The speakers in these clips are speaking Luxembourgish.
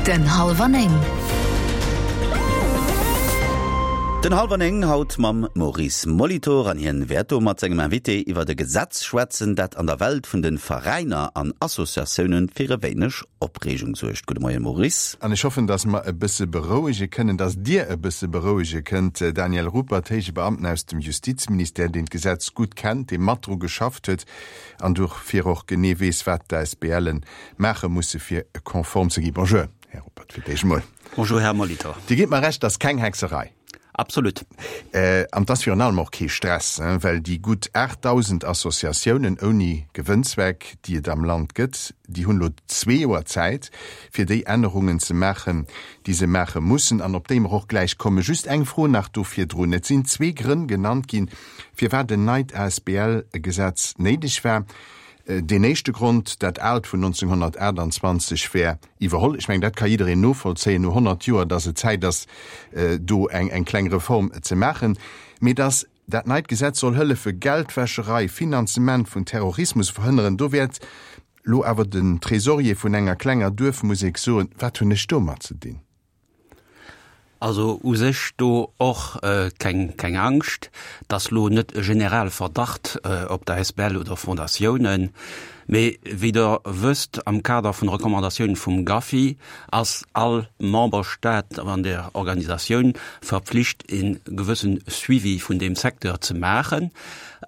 Den Hallwer 9. Den Hallwer 9 haut mam Maurice Molitor an hien wäert do mat sengem Invité iwwert e Gesetz schwätzen, dat an der Welt vun de Veräiner an Associatiounen fir e wéineg Opreegung suergt. Gudde Moien Maurice. An ech hoffen, dass mer e bësse berouege kënnen, dass Dir e bësse berouege kënnt, Daniel Ruppert, héije Beamten aus dem Justizministère, deen d'Gesetz gutt kennt, dee mat dru geschafft huet an dofir och genee weess, wat d'ASBLen maache musse fir konform ze ginn. Bonjour, Här Ruppert, fir d'éischt emol. Bonjour, Här Molitor. Dir gitt mer Recht, et ass keng Hexerei. Absolut. An et ass virun allem och kee Stress, well déi gutt 8.000 Associatiounen ouni Gewënnzweck, déi et am Land gëtt, déi hunn elo zwee Joer Zäit, fir déi Ännerungen ze maachen, déi se maache mussen an op déi mer och gläich kommen. Just eng Fro nach do virdrun, Et sinn zwee Grënn genannt ginn, firwat en neit ASBL-Gesetz néideg war. Deen éischte Grond, dat aalt vun 1928 wär iwwerholl. Ech mengen, dat ka jiddereen novollzéien no 100 Joer, dass et Zäit ass, do eng eng kleng Reform ze maachen. Mee dass dat neit Gesetz soll hëllefe Geldwäscherei, Finanzement vun Terrorismus verhënneren, do wäert lo awer den Trésorier vun enger klenger Duerfmusek soen, Wat hunn ech domat ze dinn? Also u sech do och keng keng Angscht, dass lo net e Generalverdacht op der Asbl oder Fondatiounen, mee wéi Der wësst, am Kader vun Recommandatiounen vum GAFI ass all Memberstaat an där Organisatioun verpflicht e gewëssen Suivi vun deem Secteur ze maachen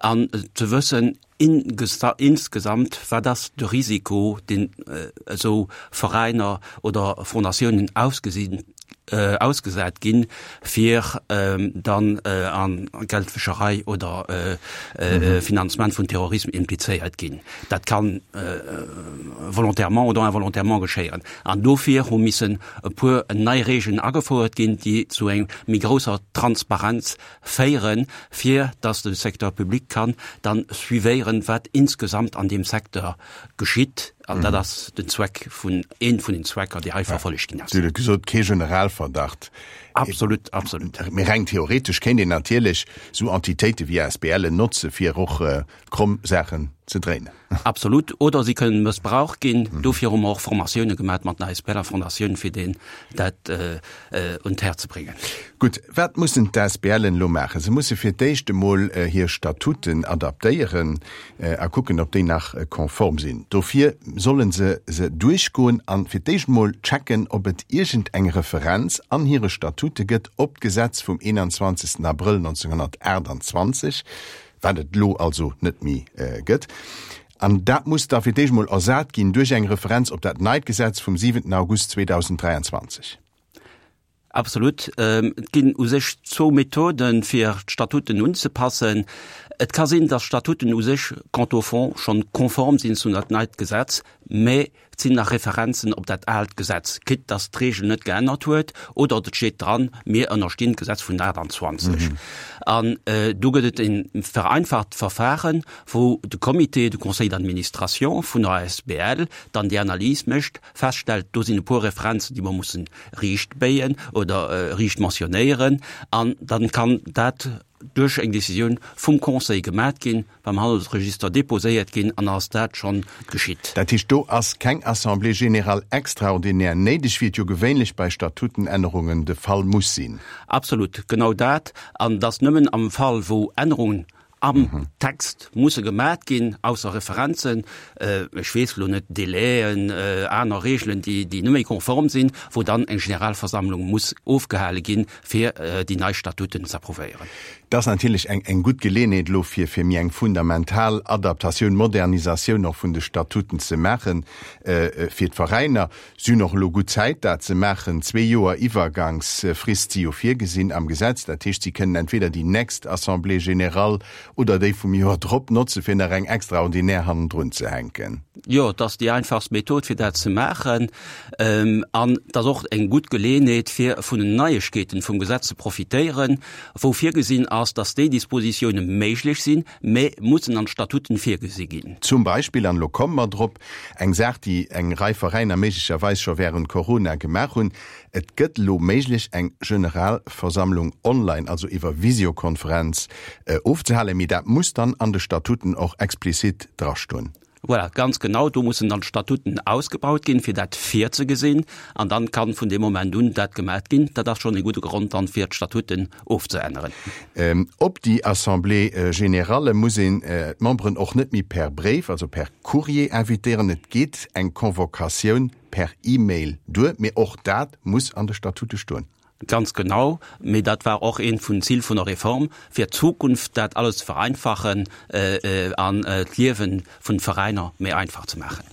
an ze wëssen, Insgesamt, wat ass de Risiko, deen esou Veräiner oder Fondatiounen ausgesinn, ausgesat ginn, fir dann a Geldwäscherei oder Finanzement vun Terrorisme implizéiert ginn? Dat ka volontairement oder involontairement geschéieren. An dofir hu missen e puer nei Regeln agefouert ginn, déi zu eng méi grousser Transparenz féieren, fir dass de Secteur public kann dann suivéieren, wat insgesamt an deem Secteur geschitt. An dat ass den Zweck vun, een vun den Zwecker, déi hei verfollegt ginn ass. Dir hutt et gesot, kee Generalverdacht. Absolut, absolut. Mee reng theoretesch kéint een natierlech esou Entitéite wéi ASBLen notze fir och kromm Saachen ze dréinen. Absolut. Oder si kënnen mëssbraucht ginn. Dofir hu mer och Formatioune gemat mat den ASBL a Fondatioun, fir deen dat un d'Här ze bréngen. Gutt, wat mussen d'ASBLen elo maachen? Se musse fir d'éischt emol hir Statuten adaptéieren a kucken, ob déi nach konform sinn. Dofir solle se se duerchgoen a fir d'éischt emol checken, ob et iergend eng Referenz an hire Statute gëtt op d'Gesetz vum 21. Abrëll 1928, wat et elo also net méi gëtt, an dat muss da fir d'éischt emol ersat ginn duerch eng Referenz op dat neit Gesetz vum 7 August 2023. Absolut. Et ginn u sech zwou Methoden, fir d'Statuten unzepassen. Et ka sinn, dass d'Statuten u sech quant au fond schonn konform sinn zu dat neit Gesetz, mä Et sinn nach Referenzen op dat aalt Gesetz, quitte dass d'Regel net geännert huet, oder et steet dran, mir ënnerstinn d'Gesetz vun 28. An do gëtt et e vereinfacht Verfahren, wou de Comité, de Conseil d'administration vun der asbl dann déi Analys mécht, feststellt, do sinn e puer Referenzen, déi mer mussen riicht béien oder riicht mentionnéieren, an dann kann dat duerch eng Décisioun vum Conseil gemat ginn, beim Handelsregister déposéiert ginn an ass dat schonn geschitt. Dat heescht, do ass keng Assemblée générale extraordinaire néideg, wéi et jo gewéinlech bei Statutenännerungen de Fall muss sinn. Absolut, genau dat. An dass nëmmen am Fall, wou Ännerungen am Text musse gemat ginn, ausser Referenzen, ech weess elo net, Délaiën, aner Regelen, déi net méi konform sinn, wou dann eng Generalversammlung muss ofgehale ginn, fir déi nei Statuten z'approuvéieren. Dat ass natierlech eng eng gutt Geleeënheet elo fir fir méi eng fundamental Adaptatioun, Modernisatioun och vun de Statuten ze maachen fir d'Veräiner. Si hunn och elo gutt Zäit dat ze maachen. Zwee Joer Iwwergangsfrist si jo virgesinn am Gesetz. Dat heescht, si kënnen entweder déi nächst Assemblée générale oder déi vum Joer drop notze fir nach eng extraordinär hannendrun ze hänken. Jo, et ass déi einfachst Method fir dat ze maachen. An et ass och eng gutt Geleeënheet fir vun den Neiegkeeten vum Gesetz ze profitéieren, wou virgesinn ass, dass déi Dispositioune méiglech sinn, mä mussen an d'Statuten virgesi ginn. Zum Beispill, an elo komme mer drop, eng Saach, déi eng Rei Veräiner méiglecherweis scho während Corona gemaach hunn, Et gëtt elo méiglech, eng Generalversammlung online, also iwwer Visiokonferenz, ofzehalen, mee dat muss dann an de Statuten och explizit drastoen. Voilà, ganz genau. Do mussen dann d'Statuten ausgebaut ginn, fir dat virzegesinn. An dann kann vun deem Moment un dat gemat ginn. Dat ass schonn e gudde Grond dann, fir d'Statuten ofzeänneren. Op déi Assemblée générale muss een d'Memberen och net méi per Bréif, also per Courrier invitéieren. Et geet eng Convocatioun per E-Mail duer. Mee och dat muss an de Statute stoen. Ganz genau, mee dat war och eent vun Zil vun der Reform, fir d'Zukunft dat alles ze vereinfachen an d'Liewe vun Veräiner méi einfach ze maachen.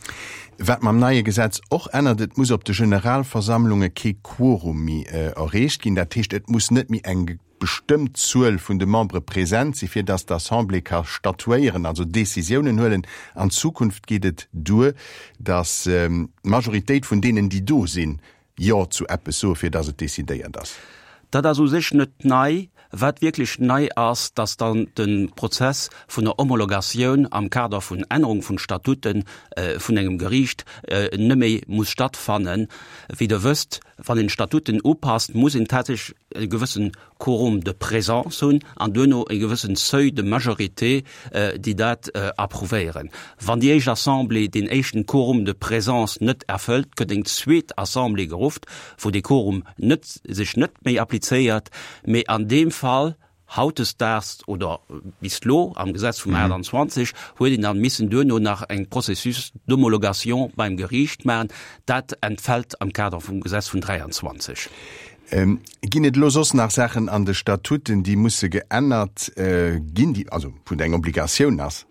Wat mam neie Gesetz och ännert, Et muss op de Generalversammlunge kee Quorum méi erreecht ginn. Dat heescht, et muss net méi eng bestëmmt Zuel vun de Membere present si fir datt d'Assemblée ka statuéieren, also Decisiounen huelen. An Zukunft geet et duer, datt d'Majoritéit vun deenen, déi do sinn, Jo zu eppes soe fir datt et decidéiert ass. Dat ass u sech net nei. Wat wierklech nei ass, datt dann de Prozess vun der Homologatioun am Kader vun Ännerung vun Statute vun engem Geriicht net méi muss stattfannen. Wéi Der wësst, wann een d'Statuten upasst, muss een tatsächlech e gewëssen Quorum de présence hunn an duerno e gewëssen Seuil de majorité, déi dat approuvéieren. Wann déi éischt Assemblée deen éischten Quorum de présence net erfëllt, gëtt eng zweet Assemblée gerufft, wou dee Quorum net, sech net méi applizéiert. Mee an deem Fall, hautdesdaags oder bis elo am Gesetz vum 28, huet een dann missen duerno nach eng Processus d'homologation beim Geriicht maachen. Dat entfält am Kader vum Gesetz vun 23. Ginn et elo soss nach Saachen an de Statuten, déi musse geännert ginn, déi, also wou et eng Obligatioun ass?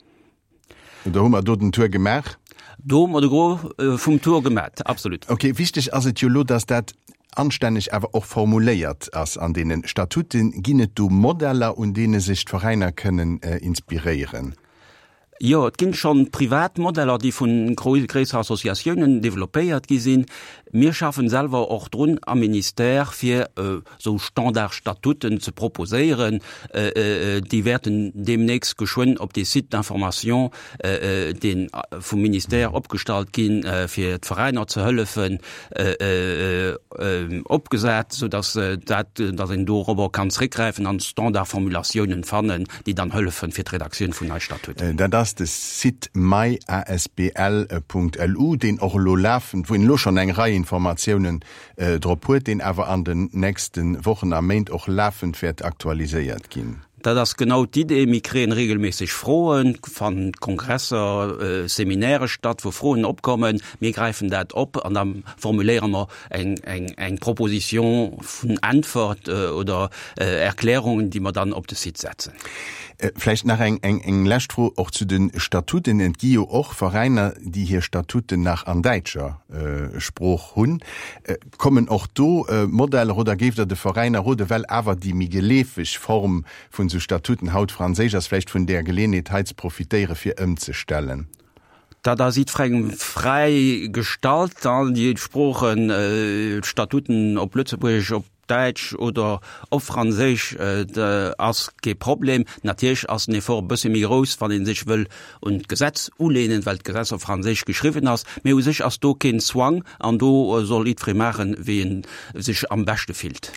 Oder hu mer do den Tour gemaach? Do hu mer de Gros vum Tour gemat, absolut. Okay, wichteg ass et jo elo, dass dat anstänneg awer och formuléiert ass an deene Statuten. Ginn et do Modeller, un deene sech d'Veräiner kënnen inspiréieren? Jo, et ginn schonn privat Modeller, déi vun gréisser Associatiounen développéiert gi sinn. Mir schaffen selwer och drun am Ministère, fir esou Standardstatuten ze proposéieren. Déi wäerten deemnächst geschwënn op dee Site d'information, dee vum Ministère opgestallt ginn, fir d'Veräiner ze hëllefen, opgesat, soudass dat, dass een dorobber kann zréckgräifen an Standardformulatiounen fannen, déi dann hëllefen fir d'Redaktioun vun nei Statuten. Dat ass de Site myasbl.lu, deen och elo lafend, wou een elo schonn eng Rei Informatiounen drop huet, deen awer an den nächste Wochen a Méint och lafend wäert aktualiséiert ginn. Dat ass genau d'Idee. Mir kréien regelméisseg Froen, fannen Kongresser, Seminäre statt, wou Froen opkommen. Mir gräifen dat op an da formuléiere mer eng, eng, eng Proposition vun Äntwert oder Erklärungen, déi mer dann op de Site setzen. Vläicht nach eng, eng, eng lescht Fro och zu de Statuten. Et gi jo och Veräiner, déi hir Statuten nach an däitscher Sprooch hunn. Kommen och do Modeller oder géift Der de Veräiner roden, well awer déi méi geleefeg Form vun esou Statuten haut franséisch ass, vläicht vun där Geleeënheet hei ze profitéieren, fir ëmzestellen? Dat ass jiddwerengem fräi gestallt, déi Sproochen, d'Statuten op Lëtzebuergesch, op Däitsch oder op Franséisch ass kee Problem. Natierlech ass den Effort e bësse méi grouss, wann ee sech wëll un d'Gesetz uleenen, well d'Gesetz op Franséisch geschriwwen ass. Mee u sech ass do keen Zwang an do soll jiddweree maachen, wéi en sech am beschte fillt.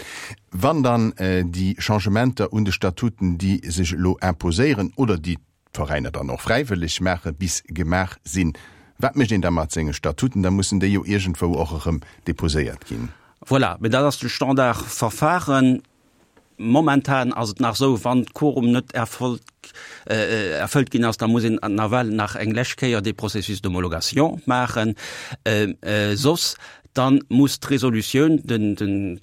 Wann dann déi Changementer un de Statuten, déi sech elo imposéieren oder déi d'Veräiner dann och fräiwëlleg maachen, bis gemaach sinn. Wat mécht een da mat senge Statuten? Da mussen déi jo iergendwou och erëm deposéiert ginn. Voilà, mee dat ass de Standardverfahren. Momentan ass et nach esou, wann d'Quorum net erfolgt, erfëllt ginn ass, da muss een nawell nach eng lescht Kéier dee Processus d'homologation maachen. Soss dann muss d'Resolutioun, den, den,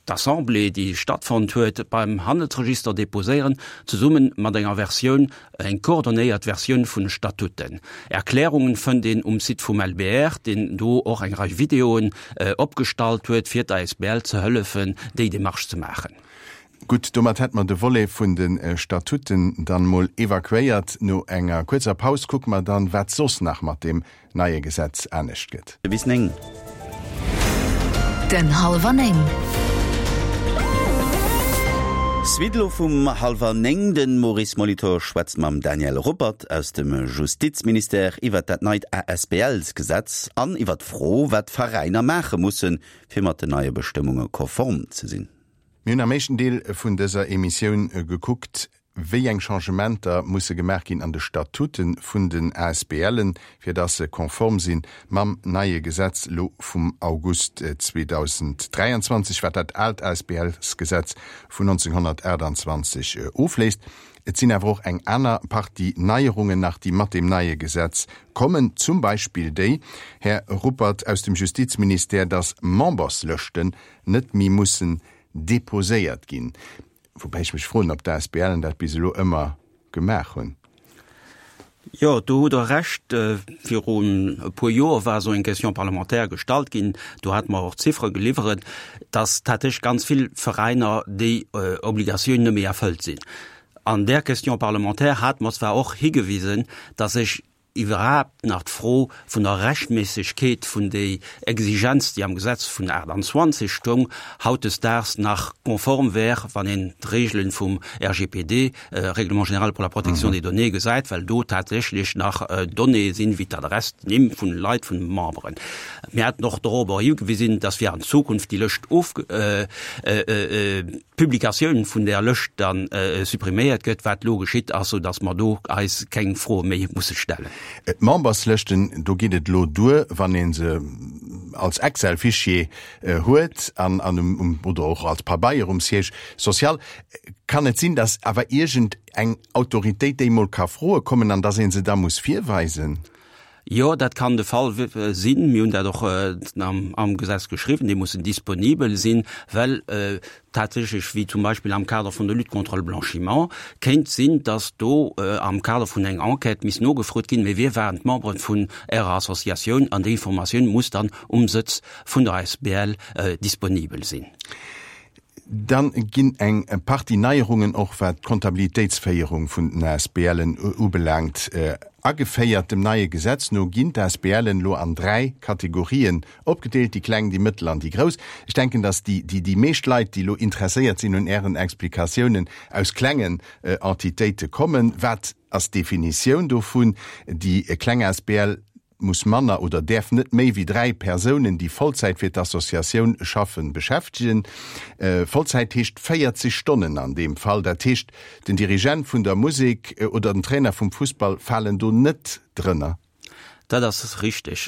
d'Assemblée, déi stattfonnt huet, beim Handelsregister déposéieren, zesumme mat enger Versioun, eng coordonnéiert Versioun vun de Statuten. Erklärungen fënnt een um Site vum LBR, deen do och eng Rei Videoen opgestallt huet, fir d'ASBL ze hëllefen, déi Démarche ze maachen. Gutt, domat hätt mer de Volet vun de Statuten dann mol evakuéiert. No enger kuerzer Paus kucke mer dann, wat soss nach mat deem neie Gesetz anescht gëtt. Bis 9. Den Hallwer 9. Suite elo vum hallwer 9. De Maurice Molitor schwätzt mam Daniel Ruppert aus dem Justizministère iwwert dat neit ASBLs-Gesetz an iwwert d'Fro, wat d'Veräiner maache mussen, fir mat den neie Bestëmmunge konform ze sinn. Mir hunn am éischten Deel vun dëser Emissioun gekuckt, wéi eng Changementer musse gemaach ginn an de Statute vun den ASBLen, fir dass se konform si mam neie Gesetz elo vum August 2023, wat dat aalt ASBLsgesetz vun 1928 ofléist. Et sinn awer och eng aner Partie Neierungen nach, déi mat deem neie Gesetz kommen, zum Beispill déi, Här Ruppert, aus dem Justizministère, dass Memberslëschten net méi mussen deposéiert ginn. Woubäi ech mech froen, ob d'ASBLen dat bis elo ëmmer gemaach hunn. Jo, do hutt Der Recht. Virun e puer Joer war esou eng Question parlementaire gestallt ginn. Do hate mer och Ziffere geliwweret, dass tatsächlech ganz vill Veräiner déi Obligatioun net méi erfëllt sinn. An där Question parlementaire hate mer zwar och higewisen, dass sech iwwerhaapt nach d'Fro vun der Rechtméissegkeet vun déi Exigenz, déi am Gesetz vun 28 stoung, hautdesdaags nach konform wär, wann een d'Regelen vum RGPD, Règlement général pour la protection des données, gesäit, well do tatsächlech nach Donnéeë sinn, wéi d'Adress, d'Nimm vun Leit, vun Memberen. Mir haten och dorobber higewisen, dass fir an Zukunft déi Lëscht of, d'Publikatioun vun där Lëscht dann suppriméiert gëtt, wat elo geschitt ass, sou dass mer do eis keng Froe méi musse stellen. D'Memberslëschten, do geet et elo duer, wann ee se als Excel-Fichier huet an um, oder och als Pabeier um Siège social. Kann et sinn, dass awer iergend eng Autoritéit déi mol ka froe kommen an dass ee se da muss virweisen? Jo, dat kann de Fall sinn. Mir hunn dat och am Gesetz geschriwwen. Déi mussen disponibel sinn, well tatsächlech, wéi zum Beispill am Kader vun der Lutte contre le blanchiment, kéint sinn, dass do am Kader vun enger Enquête misst nogefrot ginn, Mee wie waren d'Membere vun Ärer Associatioun? An déi Informatioun muss dann um Sëtz vun der asbl disponibel sinn. Dann ginn eng Partie Neierungen och wat d'Kontabilitéitsféierung vun den ASBLen ubelaangt ageféiert. Dem neie Gesetz no ginn d'ASBLen elo an 3 Kategorien opgedeelt, déi kleng, déi mëttel an déi grouss. Ech denken, dass déi déi meescht Leit, déi elo interesséiert sinn un Ären Explikatiounen, aus klengen Entitéite kommen. Wat ass d'Definitioun dovun? Déi kleng asbl muss manner oder däerf net méi wéi 3 Persounen, déi Vollzäit fir d'Associatioun schaffen, beschäftegen. Vollzäit heescht 40 Stonnen an deem Fall. Dat heescht, den Dirigent vun der Musek oder den Trainer vum Fussball falen do net drënner. Dat ass richteg.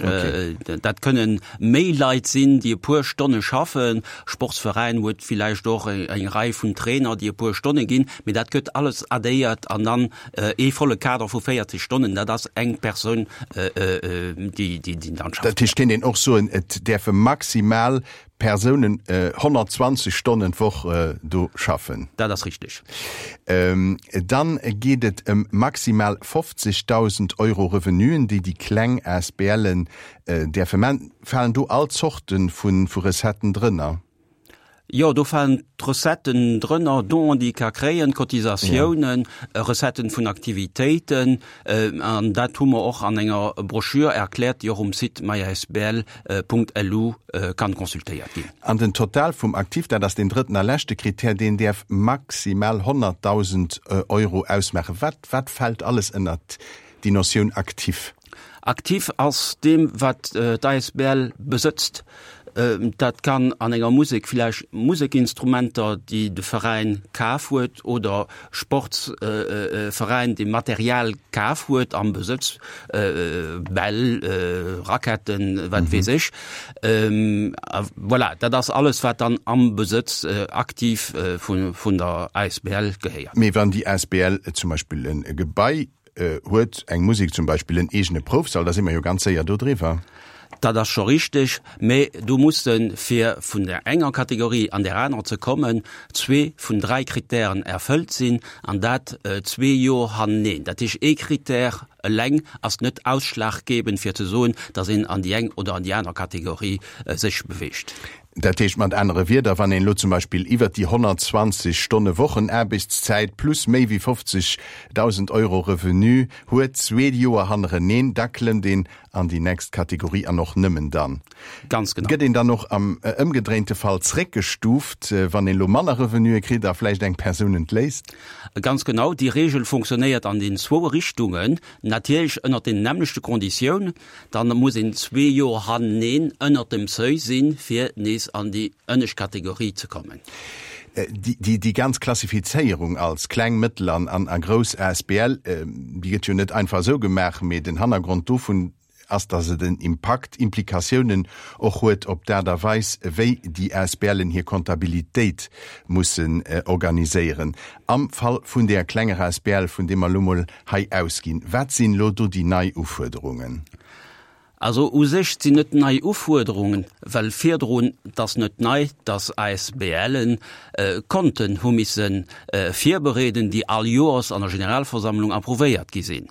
Dat kënnen méi Leit sinn, déi e puer Stonne schaffen. Sportsveräin huet villäicht och eng Rei vun Trainer, déi e puer Stonne ginn. Mee dat gëtt alles addéiert an dann Ee volle Kader vu 40 Stonnen, dat ass eng Persoun, déi dann schafft. Dat heescht, kéint een och soen, et däerfe maximal Persounen 120 Stonnen d'Woch do schaffen? Dat ass richteg. Dann geet et ëm maximal 50.000 Euro Revenuen, déi déi kleng ASBLen däerfe man. Falen do all Zorte vu Recetten drënner? Jo, do falen d'Recetten drënner, Donen, déi ee ka kréien, Cotisatiounen, Recetten vun Aktivitéiten. An dat hu mer och an enger Broschür erkläert, déi och um Site myasbl.lu kann consultéiert ginn. An den Total vum Actif, dat ass deen drëtten a leschte Krittär, deen däerf maximal 100.000 Euro ausmaachen. Wat, wat fält alles ënnert déi Notioun Actif? Actif ass deem, wat d'ASBL besëtzt. Dat kann an enger Musek vläicht Musekinstrumenter, déi de Veräin kaf huet, oder Sportsveräin, dee Material kaf huet am Besëtz, Bäll, Raquetten, wat weess ech. Voilà, dat ass alles, wat dann am Besëtz aktiv vun der ASBL gehéiert. Mee wann déi ASBL zum Beispill e Gebai Huet eng Musek zum Beispill en eegene Proufsall, da si mer jo ganz séier do driwwer. Dat ass scho richteg, mä do musse fir vun där enger Kategorie an där anerer ze kommen, zwee vun dräi Kritären erfëllt sinn, an dat zwee Joer haneneen. Dat heescht, ee Kritär eleng ass net ausschlaggebend fir ze soen, datt een an déi eng oder an déi aner Kategorie sech beweegt. Dat heescht mat anere Wierder, wann een elo zum Beispill iwwert déi 120 Stonne Wochenaarbechtszäit plus méi wéi 50.000 Euro Revenu huet, zwee Joer hannereneen, da klëmmt een an déi nächst Kategorie an och nëmmen dann. Ganz genau. Gëtt een dann och am ëmgedréinte Fall zréckgestuuft, wann een elo manner Revenue kritt a vläicht eng Persoun entléisst? Ganz genau. Déi Reegel funktionéiert an den zwou Richtungen, natierlech ënnert den nämmlechte Konditiounen. Dann muss een zwee Joer haneneen ënnert dem Seuil sinn, fir nees an déi ënnescht Kategorie ze kommen. Déi, déi ganz Klassifizéierung als kleng, mëttel an, an, a grouss asbl, déi gëtt jo net einfach esou gemaach, mee den Hannergrond dovun ass, datt et en Impakt, Implikatiounen och huet op d'Aart a Weis, wéi déi ASBLen hir Kontabilitéit mussen organiséieren. Am Fall vun där klenger asbl, vun deem mer elo mol hei ausginn, wat sinn elo do déi nei Ufuerderungen? Also u sech sinn net nei Ufuerderungen, well virdrun, et ass net nei, dass ASBLen Konten hu misse virbereeden, déi all Joers an der Generalversammlung approuvéiert gi sinn.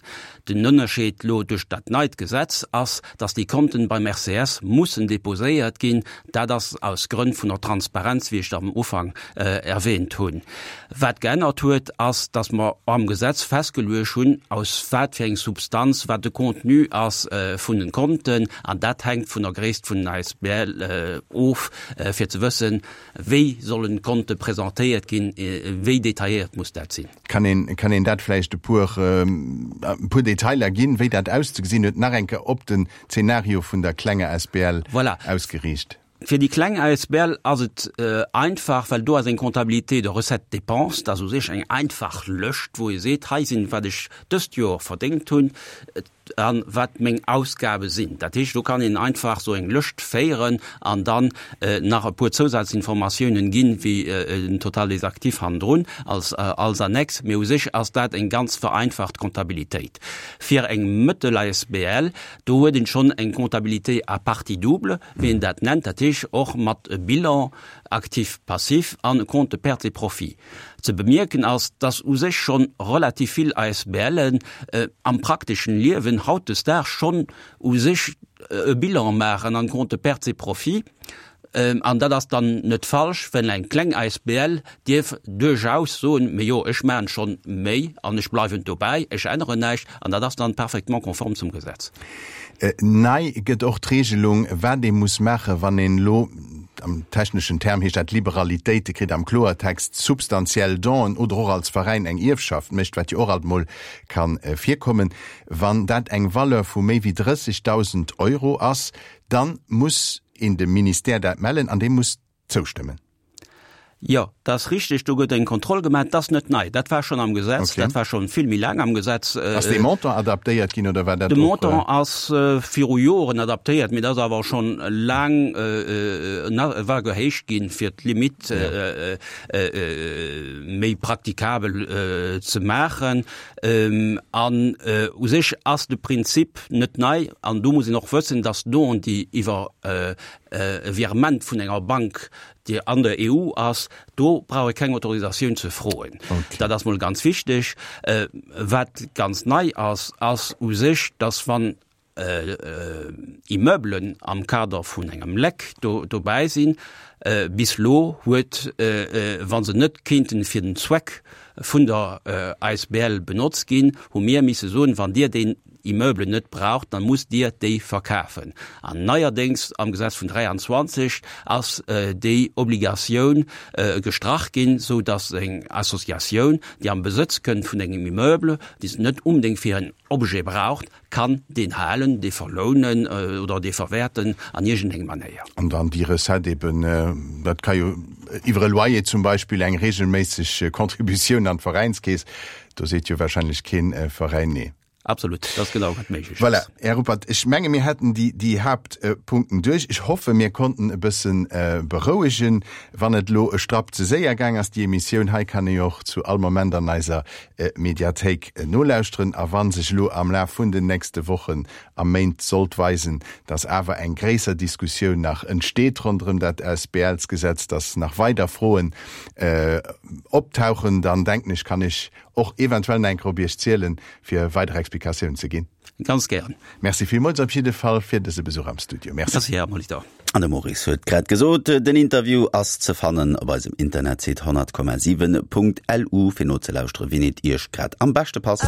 Den Ënnerscheed lo duerch dat neit Gesetz ass, dass déi Konten beim RCS mussen déposéiert ginn. Dat ass aus Grënn vun der Transparenz, wéi ech am Ufank erwähnt hunn. Wat geännert huet, ass, dass mer am Gesetz festgeluecht hunn, aus wat fir eng Substanz, wat de Contenu ass vun den Konten. An dat hänkt vun der Gréisst vun den ASBL of, fir ze wëssen, wéi sollen d'Konte presentéiert ginn, wéi detailléiert muss dat sinn. Kann een, kann een dat vläicht e puer, e puer Detailer ginn, wéi dat auszegesinn huet, nach eng Kéier op den Zeenario vun der klenger asbl Voilà. ausgeriicht? Fir déi kleng asbl ass et einfach, well do ass eng Comptabilité de recettes-dépenses, dat ass u sech eng einfach Lëscht, wou ee seet, hei sinn, wat ech dëst Joer verdéngt hunn, A wat meng Ausgabe sinn. Dat heescht, do kann een einfach esou eng Lëscht féieren an dann nach e puer Zousazinformatiounen ginn, wéi den Total des actifs hannendrun als, als Annex. Mee u sech ass dat eng ganz vereinfacht Comptabilitéit. Fir eng mëttel asbl, do huet een schonn eng Comptabilité à partie double, wéi een dat nennt, dat heescht och mat Bilan actif, passif an Compte de pertes et profits. Ze bemierken ass, dass u sech schonn relativ vill ASBLen am prakteschen Liewen hautdesdaags schonn u sech e Bilan maachen an Compte de pertes et profits. An dat ass dann net falsch, well eng kleng ASBL dierf duerchaus soen, Mee jo, ech maachen schonn méi an ech bleiwen dobäi, ech änneren näischt. An dat ass dann parfaitement konform zum Gesetz. Nei gëtt och d'Regelung, wat ee muss maachen, wann een elo, am techneschen Term heescht dat Liberalitéite kritt, am Kloertext substantiell Donen oder och als Veräin eng Ierfschaft mécht, wat jo och alt mol ka virkommen. Wann dat eng Valeur vu méi wéi 30.000 Euro ass, da muss een dem Ministère dat mellen an dee muss zoustëmmen. Jo, dat ass richteg, do gëtt eng Kontroll gemaach. Dat ass net nei, dat war schonn am Gesetz, dat war schonn vill méi laang am Gesetz. Ass dee Montant adaptéiert ginn oder war dat och? De Montant ass viru Joren adaptéiert, mee dat ass awer schonn laang, war gehéicht ginn, fir d'Limitt méi praktikabel ze maachen. An u sech ass de Prinzip net nei. An do muss een och wëssen, dass Donen, déi iwwer e Virement vun enger Bank, déi an der EU ass, do brauch ee keng Autorisatioun ze froen. Okay. Dat ass mol ganz wichteg. Äh, wat ganz nei ass, ass u sech, dass wann äh, äh, Immeublen am Kader vun engem Leck do, dobäi sinn, äh, bis lo huet, äh, äh, wa se net kéinten fir den Zweck vun der äh, ASBL benotzt ginn, hu mir misse soen, wann Dir deen Immeuble net braucht, dann musst Dir déi verkafen. An neierdéngs am Gesetz vun 23 ass déi Obligatioun gestrach ginn, sou dass eng Associatioun, déi am Besëtz kënnt vun engem Immeuble, déi se net unbedéngt fir en Objet braucht, kann deen halen, dee verlounen oder dee verwäerten an iergendeng Manéier. An dann déi Recette eben, dat ka jo iwwer e Loyer zum Beispill eng regelméisseg Contributioun an d'Veräinskeess, do seet jo wahrscheinlech kee Veräin nee. Absolut, dat ass genau wat méiglech ass. Voilà, Här Ruppert, ech menge mir hätten déi, déi Haaptpunkten duerch. Ech hoffe mir konnten e bësse berouegen. Wann et elo e Strapp ze séier gaang ass, déi Emissioun hei kann ee jo och zu all Moment an eiser Mediathéik nolauschteren. A wa sech elo am Laf vun den nächste Wochen a Méint sollt weisen, dass awer eng gréisser Diskussioun nach entsteet ronderëm dat ASBLsgesetz, dass nach weider Froen optauchen, dann denken ech, kann ech och eventuell nach eng Kéier op Iech zielen, fir weider Explikatiounen ze ginn. Ganz gären. Merci villmools op jidde Fall fir dëse Besuch am Studio. Merci. Merci, Här Molitor. An de Maurice huet grad gesot, den Interview ass ze fannen op eisem Internetsite 100,7.lu fir nozelauschteren, wien et Iech grad am beschte passt.